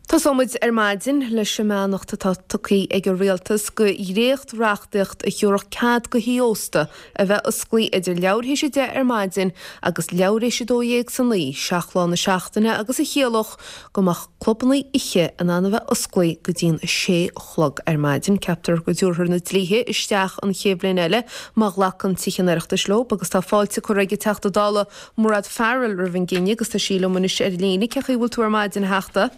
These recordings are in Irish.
Tosóimid ar maidin leis an mbeannacht atá tugtha ag an Rialtas go dhréacht-reachtaíocht a thiúrfadh cead go thithe ósta a bheith osclaí idir leathuair théis 10 ar maidin agus leathuair théis 12 san oíche, 7 lá na seachtaine agus a chiallódh go mbeadh clubanna oíche in ann a bheith osclaí go dtí'n 6 a chlog ar maidin. Ceaptar go dtabharfar na dlíthe isteach an chéad bhliain eile má ghlacann Tithe an Oireachtais leo agus tá fáilte curtha ag an Teachta Dála Mairéad Farrell roimh an gcinneadh agus tá sí liom anois ar líne. Cén chaoi a bhfuil tú ar maidin, a Theachta?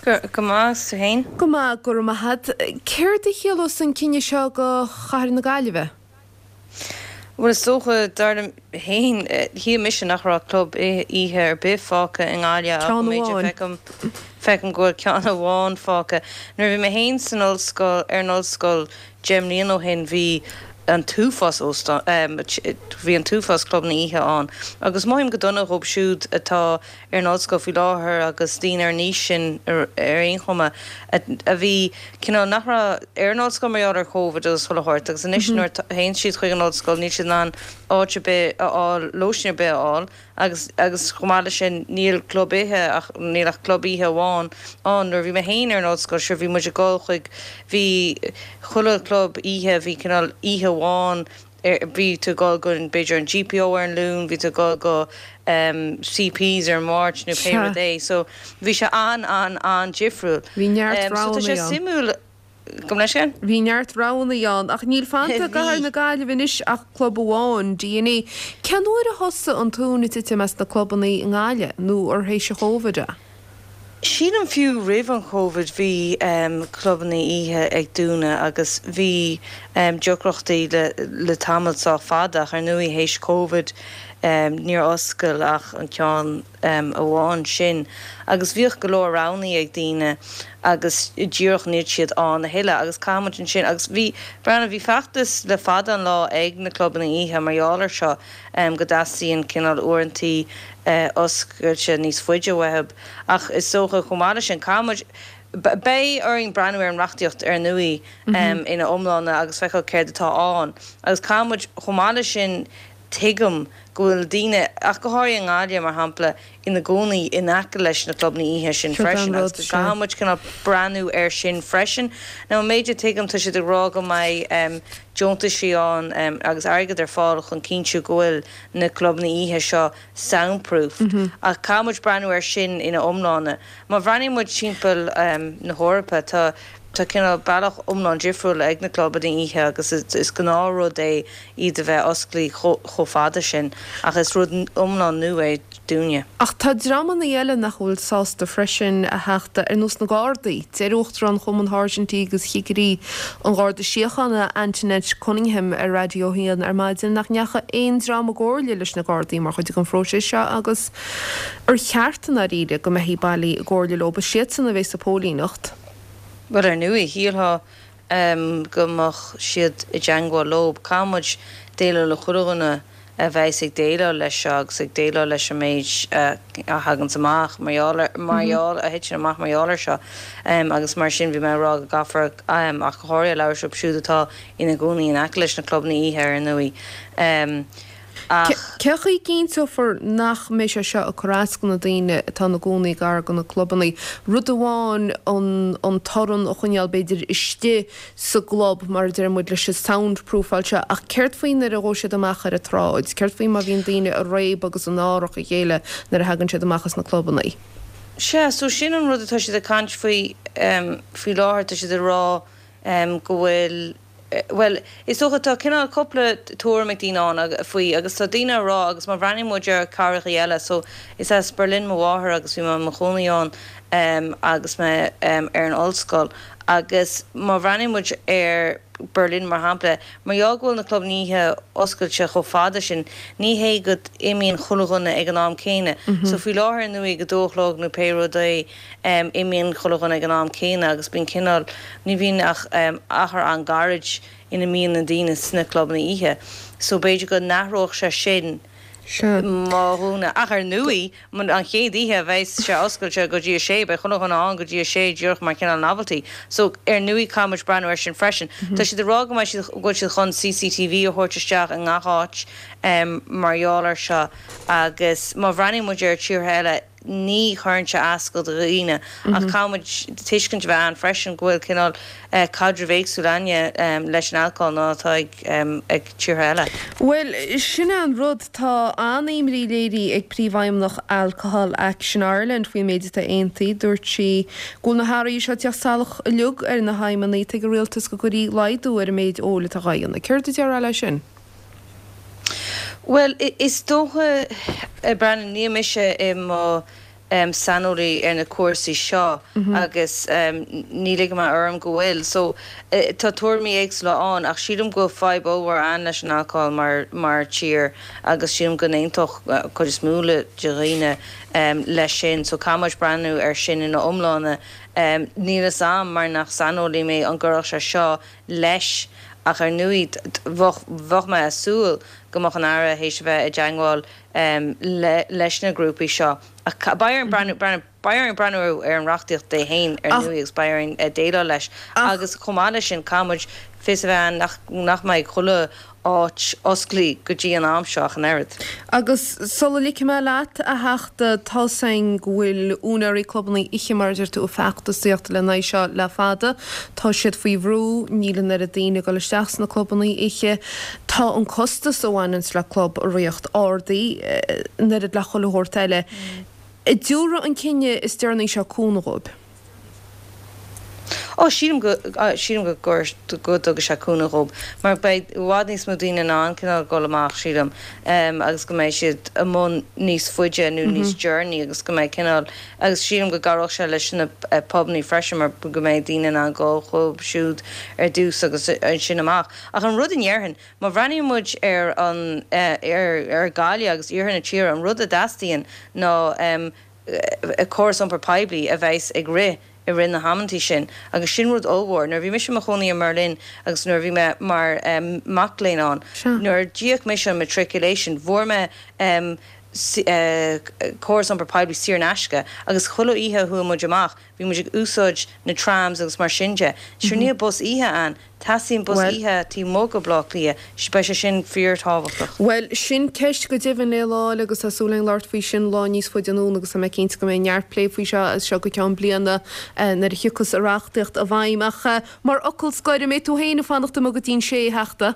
Go maith, is tú fhéin? Go maith, go raibh maith agat. Céard a chiallós an cinneadh seo do chathair na Gaillimhe? Bhuel, is dócha, dar liom fhéin, shíl mise nach raibh club oíche ar bith fágtha i nGaillimh ach Ceann an méid a amháin. feicim, feicim go bhfuil ceann amháin fágtha. Nuair a bhí mé fhéin san ollscoil, ar an ollscoil, Deich mbliana ó shin bhí an t-uafás óstán, bhí an t-uafás clubanna oíche ann agus mothaím go dona dhóibh siúd atá ar an ollscoil faoi láthair agus daoine ar an aois sin ar aon chuma a bhí cineál nach raibh ar an ollscoil mar gheall ar Covid agus chuile shórt agus anois nuair a théann siad chuig an ollscoil níl siad in ann áit ar bith a fháil, lóistín ar bith a fháil. Agus, agus chomh maith leis sin, níl club oíche ach, níl ach club oíche amháin ann. Nuair a bhí mé féin ar an ollscoil, sure, bhí muid ag dul chuig, bhí chuile chlub oíche, bhí cineál oíche amháin ar, bhí tú ag dul go, b'fhéidir an GPO ar an Luan, bhí tú ag dul go CP's ar an Mháirt nó pé Sea. rud é. So, bhí sé an, an, an-difriúil. Bhí neart So tá roghanna sé ann. suimiúil. Gabh mo leithscéal? Bhí neart roghanna ann, ach níl fanta i gcathair na Gaillimhe anois ach club amháin, DNA. Cén uair a thosaigh an tóin ag titim as na clubanna i nGaillimh, nó ar théis an Chóvid é? Sílim fiú roimh an Chóvid bhí clubanna oíche ag dúnadh agus bhí deacrachtaí le tamall sách fada ach ar ndóigh théis Covid níor oscail ach an ceann amháin sin agus bhíodh go leor roghannaí ag daoine agus díreach níl siad ann a thuilleadh agus caithfidh muid ansin agus bhí, breathnaigh, bhí feachtas le fada an lá ag na clubanna oíche mar gheall ar seo go dteastaíonn cineál uaireantaí oscailte níos faide uathu ach is dócha chomh maith leis sin caithfidh muid, beidh orainn breathnú ar an reachtaíocht ar ndóigh ina iomláine agus feiceáil céard atá ann agus caithfidh muid chomh maith leis sin Tuigim go bhfuil daoine, ach go háirithe i nGaillimh, mar shampla, ina gcónaí in aice leis na clubanna oíche sin Seo freisin an agus rud, go sea. gcaithfidh muid cineál breathnú air sin freisin. Now, an méid a tuigim, tá siad ag rá go mbeidh deontaisí ann agus airgead ar fáil chun cinntiú go bhfuil na clubanna oíche seo soundproofed ach caithfidh muid breathnú air sin ina iomláine. Má bhreathnaíonn muid timpeall na hEorpa, tá tá cineál bealach iomlán difriúil ag na clubanna oíche agus is gnáthrud é iad a bheith osclaí chomh fada sin, ach is rud iomlán nua é dúinne. Ach tá dreamanna eile nach bhfuil sásta freisin, a Theachta, ar nós na Gardaí. Deir Uachtarán Chumann Sháirsintí agus Chigirí an Gharda Síochána, Antoinette Cunningham ar Raidió 1 ar maidin nach ndeachaigh aon dream i gcomhairle leis na Gardaí mar chuid den phróiseas seo agus ar cheart i ndáiríre go mbeifí bailí i gcomhairle leo, is iadsan a bheas sa phóilíneacht. Bhuel, ar ndóigh, shílfeá go mbeadh siad i dteangmháil leo. Caithfidh muid déileáil le chuile dhuine a bheas ag déileáil leis seo agus ag déileáil leis an méid a thaganns amach mar gheall ar, mar gheall, a thiteann amach mar gheall air seo. Agus mar sin, bhí mé ag rá go gcaithfear, ach go háirithe labhairt leo siúd atá ina gcónaí in aice leis na clubanna oíche, ar ndóigh. Ach. Cén chaoi a gcinnteofar nach mbeidh sé seo ag cur as do na daoine atá ina gcónaí gar do na clubanna? Rud amháin an torann a choinneáil b'fhéidir istigh sa gclub mar a deir muid leis an soundproofáil seo ach céard faoi nuair a ghabhfaidh siad amach ar an tsráid? Céard faoi má bhíonn daoine ag réabadh agus ag náireach a chéile nuair a thagann siad amach as na clubanna? Sea, so sin an rud atá siad ag caint faoi faoi láthair, tá siad ag rá go bhfuil, Bhuel, is dócha, tá cineál cúpla tuairim ag daoine ann faoi agus tá daoine ag rá agus má bhreathnaíonn muid ar cathrachaí eile, so is as Berlin mo mháthair agus bhí mé i mo chónaí ann agus mé ar an ollscoil agus má bhreathnaíonn muid ar Berlin mar shampla, mar gheall go bhfuil na clubanna oíche oscailte chomh fada sin, ní hé go n-imíonn chuile dhuine ag an am céanna. So faoi láthair ar ndóigh ag a dó a chlog nó pé rud é, Imíonn chuile dhuine ag an am céanna agus bíonn cineál, ní bhíonn ach achar an-ghairid ina mbíonn na daoine sna clubanna oíche. So b'fhéidir go n-athródh sé sin má dhúnadh. Ach ar ndóigh, an chéad oíche a bheas sé oscailte go dtí a sé, beidh chuile dhuine ann go dtí a sé díreach mar chineál novelty. So ar ndóigh caithfidh muid breathnú air sin freisin. Tá siad ag rá go mbeidh siad, go bhfuil siad chun CCTV a thabhairt isteach i ngach áit mar gheall air seo agus má bhreathnaíonn muid ar tíortha eile. Ní chuireann sé as do dhaoine ach caithfidh muid tuiscint a bheith ann freisin go bhfuil cineál caidreamh éagsúil againne leis an alcól ná atá ag tíortha eile. Bhuel, sin é an rud, tá an-imní léirithe ag Príomhfheidhmeannach Alcohol Action Ireland faoin méid atá aontaithe. Dúirt sí go bhfuil na hathruithe seo ag teacht salach uilig ar na haidhmeanna atá ag an rialtas go gcuirfí laghdú ar an méid óil atá dhá dhéanamh. Céard a déarfá leis sin? Bhuel, is dócha, a Bhreandáin, níl mise i mo saineolaí ar na cúrsaí seo agus ní ligfidh mé orm go bhfuil. So, tá tuairimí éagsúla ann ach sílim go bhfuil fadhb ollmhór ann leis an alcól mar mar tír agus sílim go n-aontódh cuid is mó de dhaoine leis sin. So, caithfidh muid breathnú air sin ina iomláine. Níl fhios a'm, mar nach saineolaí mé, an gcuirfeadh sé seo leis ach ar ndóigh bheadh mé ag súil go mbeadh an Aire théis a bheith i dteangmháil leis na grúpaí seo ach beidh orainn breathnú beidh orainn breathnú ar an reachtaíocht é féin ar ndóigh agus beidh orainn déileáil leis agus chomh maith leis sin caithfidh muid fios a bheith ann nach nach mbeidh chuile áit osclaí go dtí an am seo ach an oiread. Agus sula ligfidh mé leat, a Theachta, tá's againn go bhfuil úinéirí clubanna oíche, mar a deir tú, ag feachtasaíocht lena aghaidh seo le fada. Tá siad faoi bhrú, níl an oiread daoine ag dul isteach sna clubanna oíche. Tá an costas a bhaineanns le club a ríocht ardaithe, an oiread le chuile shórt eile. An dtabharfaidh an cinneadh is deireanaí seo cúnamh dhóibh? Ó, sílim go, sílim go gcuir, go dtugfaidh sé cúnamh dhób, mar beidh i bhfad níos mó daoine in ann cineál dul amach, sílim, agus go mbeidh siad amuigh níos faide nó níos deireanaí agus go mbeidh cineál, agus sílim go gcabhródh sé leis na pubannaí freisin mar go mbeidh daoine in ann dul chucu siúd ar dtús agus ansin amach. Ach an rud a ndéarfainn, má bhreathnaíonn muid ar an, ar, ar Gaillimh agus iarthar na tíre, an rud a dteastaíonn ná, córas iompair poiblí a bheas ag rith i rith na hamantaí sin agus sin rud ollmhór. Nuair a bhí mise i mo chónaí i mBerlin agus nuair a bhí mé mar mac léinn ann, nuair a d'íoc mise an matriculation, bhfuair mé córas iompair poiblí saor in aisce agus chuile oíche a chuaigh muid amach, bhí muid ag úsáid na trams agus mar sin de. Sure níl bus oíche ann. Teastaíonn bus oíche taobh amuigh de Bhleá Cliath. Beidh sé sin fíorthábhachtach. Bhuel, sin ceist go deimhin le lá eile agus tá súil againn labhairt faoi sin lá níos faide anonn agus tá mé cinnte go mbeidh neart plé faoi seo as seo go ceann bliana nuair a thiocfas an reachtaíocht i bhfeidhm. Ach mar fhocal scoir, an mbeidh tú féin ag fanacht amuigh go dtí'n sé, a Theachta?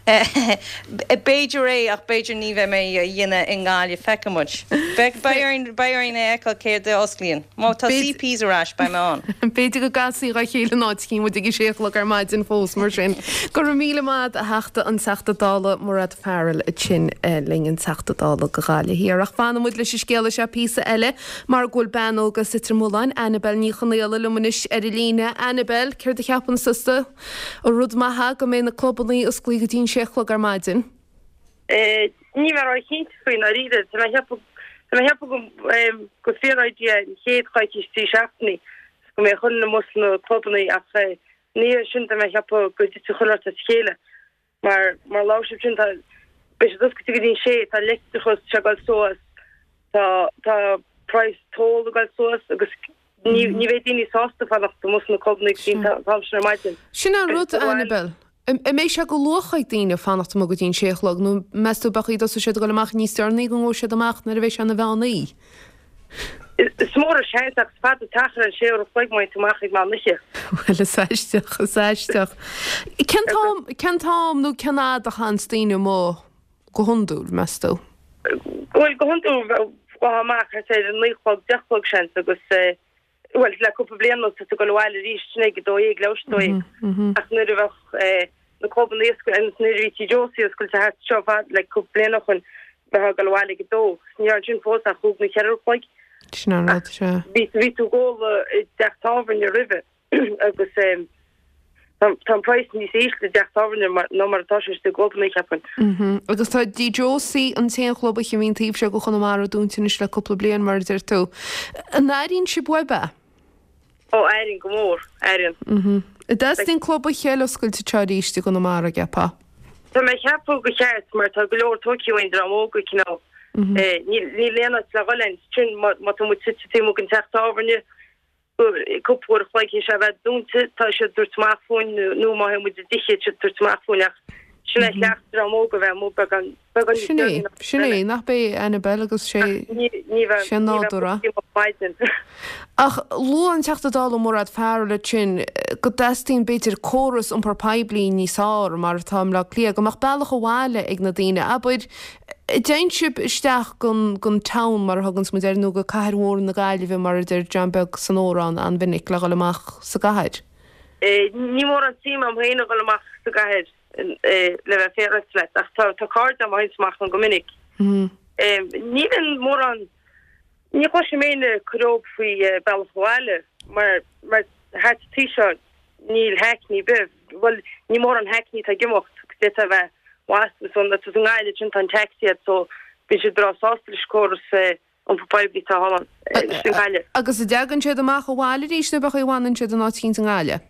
B'fhéidir é, ach b'fhéidir ní bheidh mé á dhéanamh i nGaillimh. Feicfidh muid. Beidh orainn, beidh orainn a fheiceáil céard a osclaíonn. Má tá CP's ar ais, beidh mé ann. B'fhéidir go gcasfaí dhá chéile in áit eicínt muid ag a sé a chlog ar maidin fós, mar sin. Go raibh míle maith a't, a Theachta, an Teachta Dála Mairéad Farrell ansin linn, an Teachta Dála do Ghaillimh Thiar. Ach fanfaidh muid leis an scéala seo píosa eile mar go bhfuil bean óg as Leitir Mealláin, Annabel Ní Chonaola, liom anois ar an líne. Annabel, céard a cheapann tusa? An rud maith é go mbeidh na clubannaí osclaí go dtí'n sé a chlog ar maidin? Níl mé ró-chinnte faoi ndáiríre. Tá mé ag ceapadh tá mé ag ceapadh go gur fíor-idea an chéad choicís, 3 seachtainí go mbeadh chuile dhuine amuigh sna clubannaí ach ina dhiaidh sin tá mé ag ceapadh go dtitfidh chuile shórt as a chéile mar mar labhair sibh sin tá beidh siad oscailte go dtí'n sé tá leictreachas tá sé ag dul suas tá tá praghas toll ag dul suas agus Ní bheidh daoine sásta fanacht amuigh sna clubanna go dtí an t-am sin ar maidin. Sin an rud, Annabel. An mbeidh sé de luach ag daoine fanacht amuigh go dtí an sé a chlog nó meas tú b'fhéidir go dtosóidh siad ag dul amach níos deireanaí go ngabhfaidh siad amach nuair a bheidh sé ina mheán oíche? Is mór an seans ach is fada an t-achar an sé uair a chloig má théann tú amach ag meán oíche. Bhuel, is aisteach, is aisteach. Cén t-am, cén t-am nó cén fhad a chaitheanns daoine amuigh go hiondúil, meas tú? Bhuel, go hiondúil, bheifeá amach thart ar a naoi a chlog, deich a chlog, seans, agus, bhuel, le cúpla bliain anuas, tá tú ag dul abhaile arís, sin ag a dó dhéag, leathuair tar éis a dó dhéag. Ach nuair a bheadh na clubanna oscailte, agus nuair a bhí Tigh Josie oscailte thart seo fad, le cúpla bliain ó shoin, bheifeá ag dul abhaile ag a dó. Ní raibh ansin fós ach chúig nó cheithre uair a chloig. Sin an rud, sea. Bhí tú ag ól i dteach tábhairne roimhe. agus tá an praghas níos ísle i dteach tábhairne ná mar atá sé sna clubanna, cheapfainn. Agus tá Tigh Josie, an t-aon chlub oíche a bhíonn taobh seo de Chonamara dúnta anois le cúpla bliain, mar a deir tú. An airíonn sibh uaibh é? Ó, airíonn go mór, airíonn. An dteastaíonn club oíche eile oscailte anseo arís i gConamara, an gceapfá? Tá mé ag ceapadh gur cheart mar tá go leor tógtha uainn dream óg cineál. Níl aon áit le dhul ann sin má tá muid suite taobh amuigh den teach tábhairne. cúpla uair a chloig théis é a bheith dúnta, tá siad ag tabhairt amach fúinn nó má théann muid i dtithe, tá siad ag tabhairt amach fúinn ach. Sin é cleacht dream óg a bheith amuigh beagán, beagán níos Sin é, deireanaí ná sin é, eile. nach b'é Annabel agus sé, Ach ní, ní bheith, sé ní bheith nádúr é. amuigh maidin. Ach luaigh an Teachta Dála Mairéad Farrell ansin go dteastaíonn b'fhéidir córas iompar poiblí níos fearr mar atá i mBleá Cliath, go mbeadh bealach abhaile ag na daoine. Abair, an dtéann sibh isteach gon, gon town mar a thuganns muid air nó go cathair mhór na Gaillimhe mar a deir John Beag san amhrán an-mhinic le dhul amach sa gcathair? Ní mórán suim agam féin a dhul amach sa gcathair le bheith féaráilte leat ach tá cairde agam a théanns amach ann go minic. Ní bhíonn mórán Ní chloisim éinne ag cur orthu faoi bealach abhaile mar mar thart an taobh seo níl hackney ar bith, bhuel ní mórán hackney atá ag imeacht agus d'fhéadfá a bheith wasta so na i nGaillimh sin tá an taxi agat so bíonn siad breá sásta leis an córas iompar poiblí atá thall ann i nGaillimh. Agus an dtagann siad amach abhaile arís nó ab é an chaoi a bhfanann siad in áit eicínt i nGaillimh?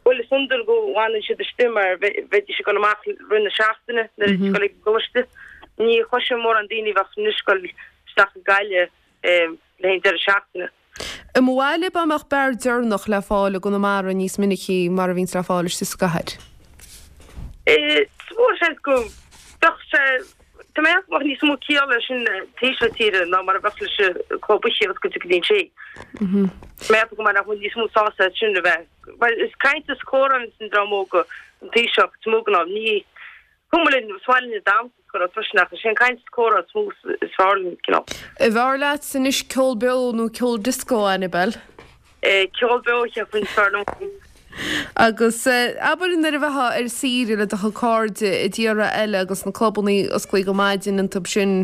Bhuel is iondúil go bhfanann siad istigh mar bheidís ag dul amach rith na seachtaine nuair a bhíonn siad ag dul ag an gcoláiste. Ní chloisim mórán daoine a bheadh anois ag dul isteach go Gaillimh le haghaidh an deireadh seachtaine. I mo bhaile dá mbeadh beár deireanach le fáil i gConamara níos minicí mar a bhíonns le fáil istigh sa gcathair. Is mór seans go mbeadh sé, tá mé ag ceapadh go mbeadh níos mó ciall leis sin taobh seo tíre ná mar a bheadh leis an club oíche oscailte go dtí an sé. Tá mé ag ceapadh go mbeadh níos mó sásta as sin a bheith, mar is caint is comhrá a bhíonns an dream óg an taobh seo, is mó go ná ní cuma linn, is maith linn ag damhsa is cur freisin ach is é an caint is comhrá is mó is fearr linn, cineál. An bhfearr leat anois ceol beo nó ceol disco, Annabel? Ceol beo, cheapfainn, is fearr liom. Agus abair nuair a bheifeá ar saoire le do chuid cairde i dtíortha eile agus na clubannaí osclaithe go maidin iontu sin,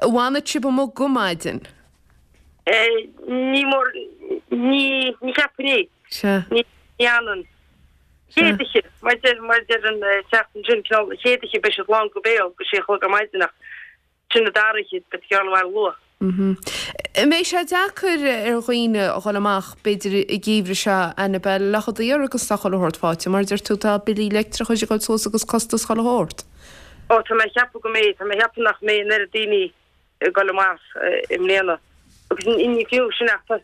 an bhfanadh sibh amuigh go maidin? Ní mór, ní, ní cheapfainn é. Sea. Ní fhanann. Chéad oíche, mar deir, mar deir an teachta ansin, cineál, an chéad oíche beidh siad lán go béal go sé a chlog ar maidin ach sin an dara oíche, beidh tú ag dul abhaile luath. An mbeidh sé deacair ar dhaoine a dhul amach, b'fhéidir, an geimhreadh seo, Annabel, le daor agus tá chuile shórt faighte, mar a deir tú, tá billí leictreachais ag dul suas agus costas chuile shórt. Ó, tá mé ag ceapadh go mbeidh, tá mé ag ceapadh nach mbeidh an oiread daoine ag dul amach i mbliana. Agus ní fiú sin ach tá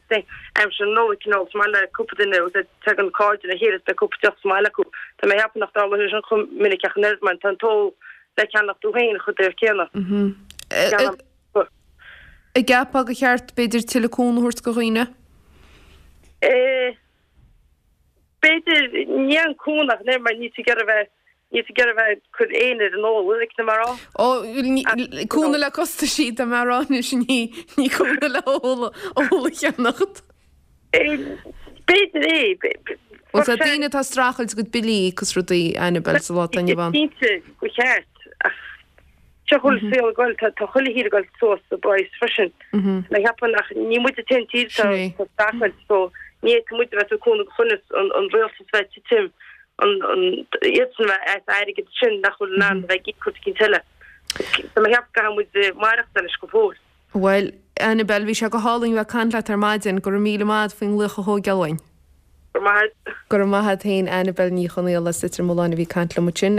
aimsir na Nollag cineál is maith le cúpla duine agus tagann cairde le chéile is beidh cúpla deoch sa mbaile acu. Tá mé ag ceapadh nach dtarlóidh sé sin chomh minic ach an oiread mar tá an t-ól le ceannach dó féin chomh daor céanna. An gceapfá gur cheart b'fhéidir tuilleadh cúnamh a thabhairt do dhaoine? B'fhéidir, ní an cúnamh ach an oiread mar níl tú ag iarraidh a bheith Níl tú ag iarraidh a bheith ag cur éinne ar an ól, like, tá mé a rá. Ó, cúnamh le costaisí, tá mé a rá anois, ní, ní cúnamh le ól, ól a cheannacht. B'fhéidir é. Bhuel, tá daoine atá ag streachailt a gcuid billí a íoc is rudaí, Annabel, sa lá atá inniu ann. Cinnte, go cheart, ach seo chuile saol ag goil, tá chuile thír ag goil suas sa bpraghas freisin. Tá mé ag ceapadh nach, ní muid an t-aon tír atá ag streachailt, so ní fhéadfaidh muid a bheith ag cúnamh go choinneas an rialtas bheith ag titim iadsan a bheith as airgead sin nach bhfuil in ann a bheith ag íoc rud eicínt eile. Tá mé ag ceapadh go gcaithfidh muid maireachtáil leis go fóill. Bhuel, Annabel, bhí sé go hálainn bheith ag caint leat ar maidin. Go raibh míle maith agat faoin nglaoch a thógáil uainn. Go raibh maith agat. Go raibh maith agat féin, Annabel Ní Chonaola as Leitir Mealláin a bhí ag caint liom ansin.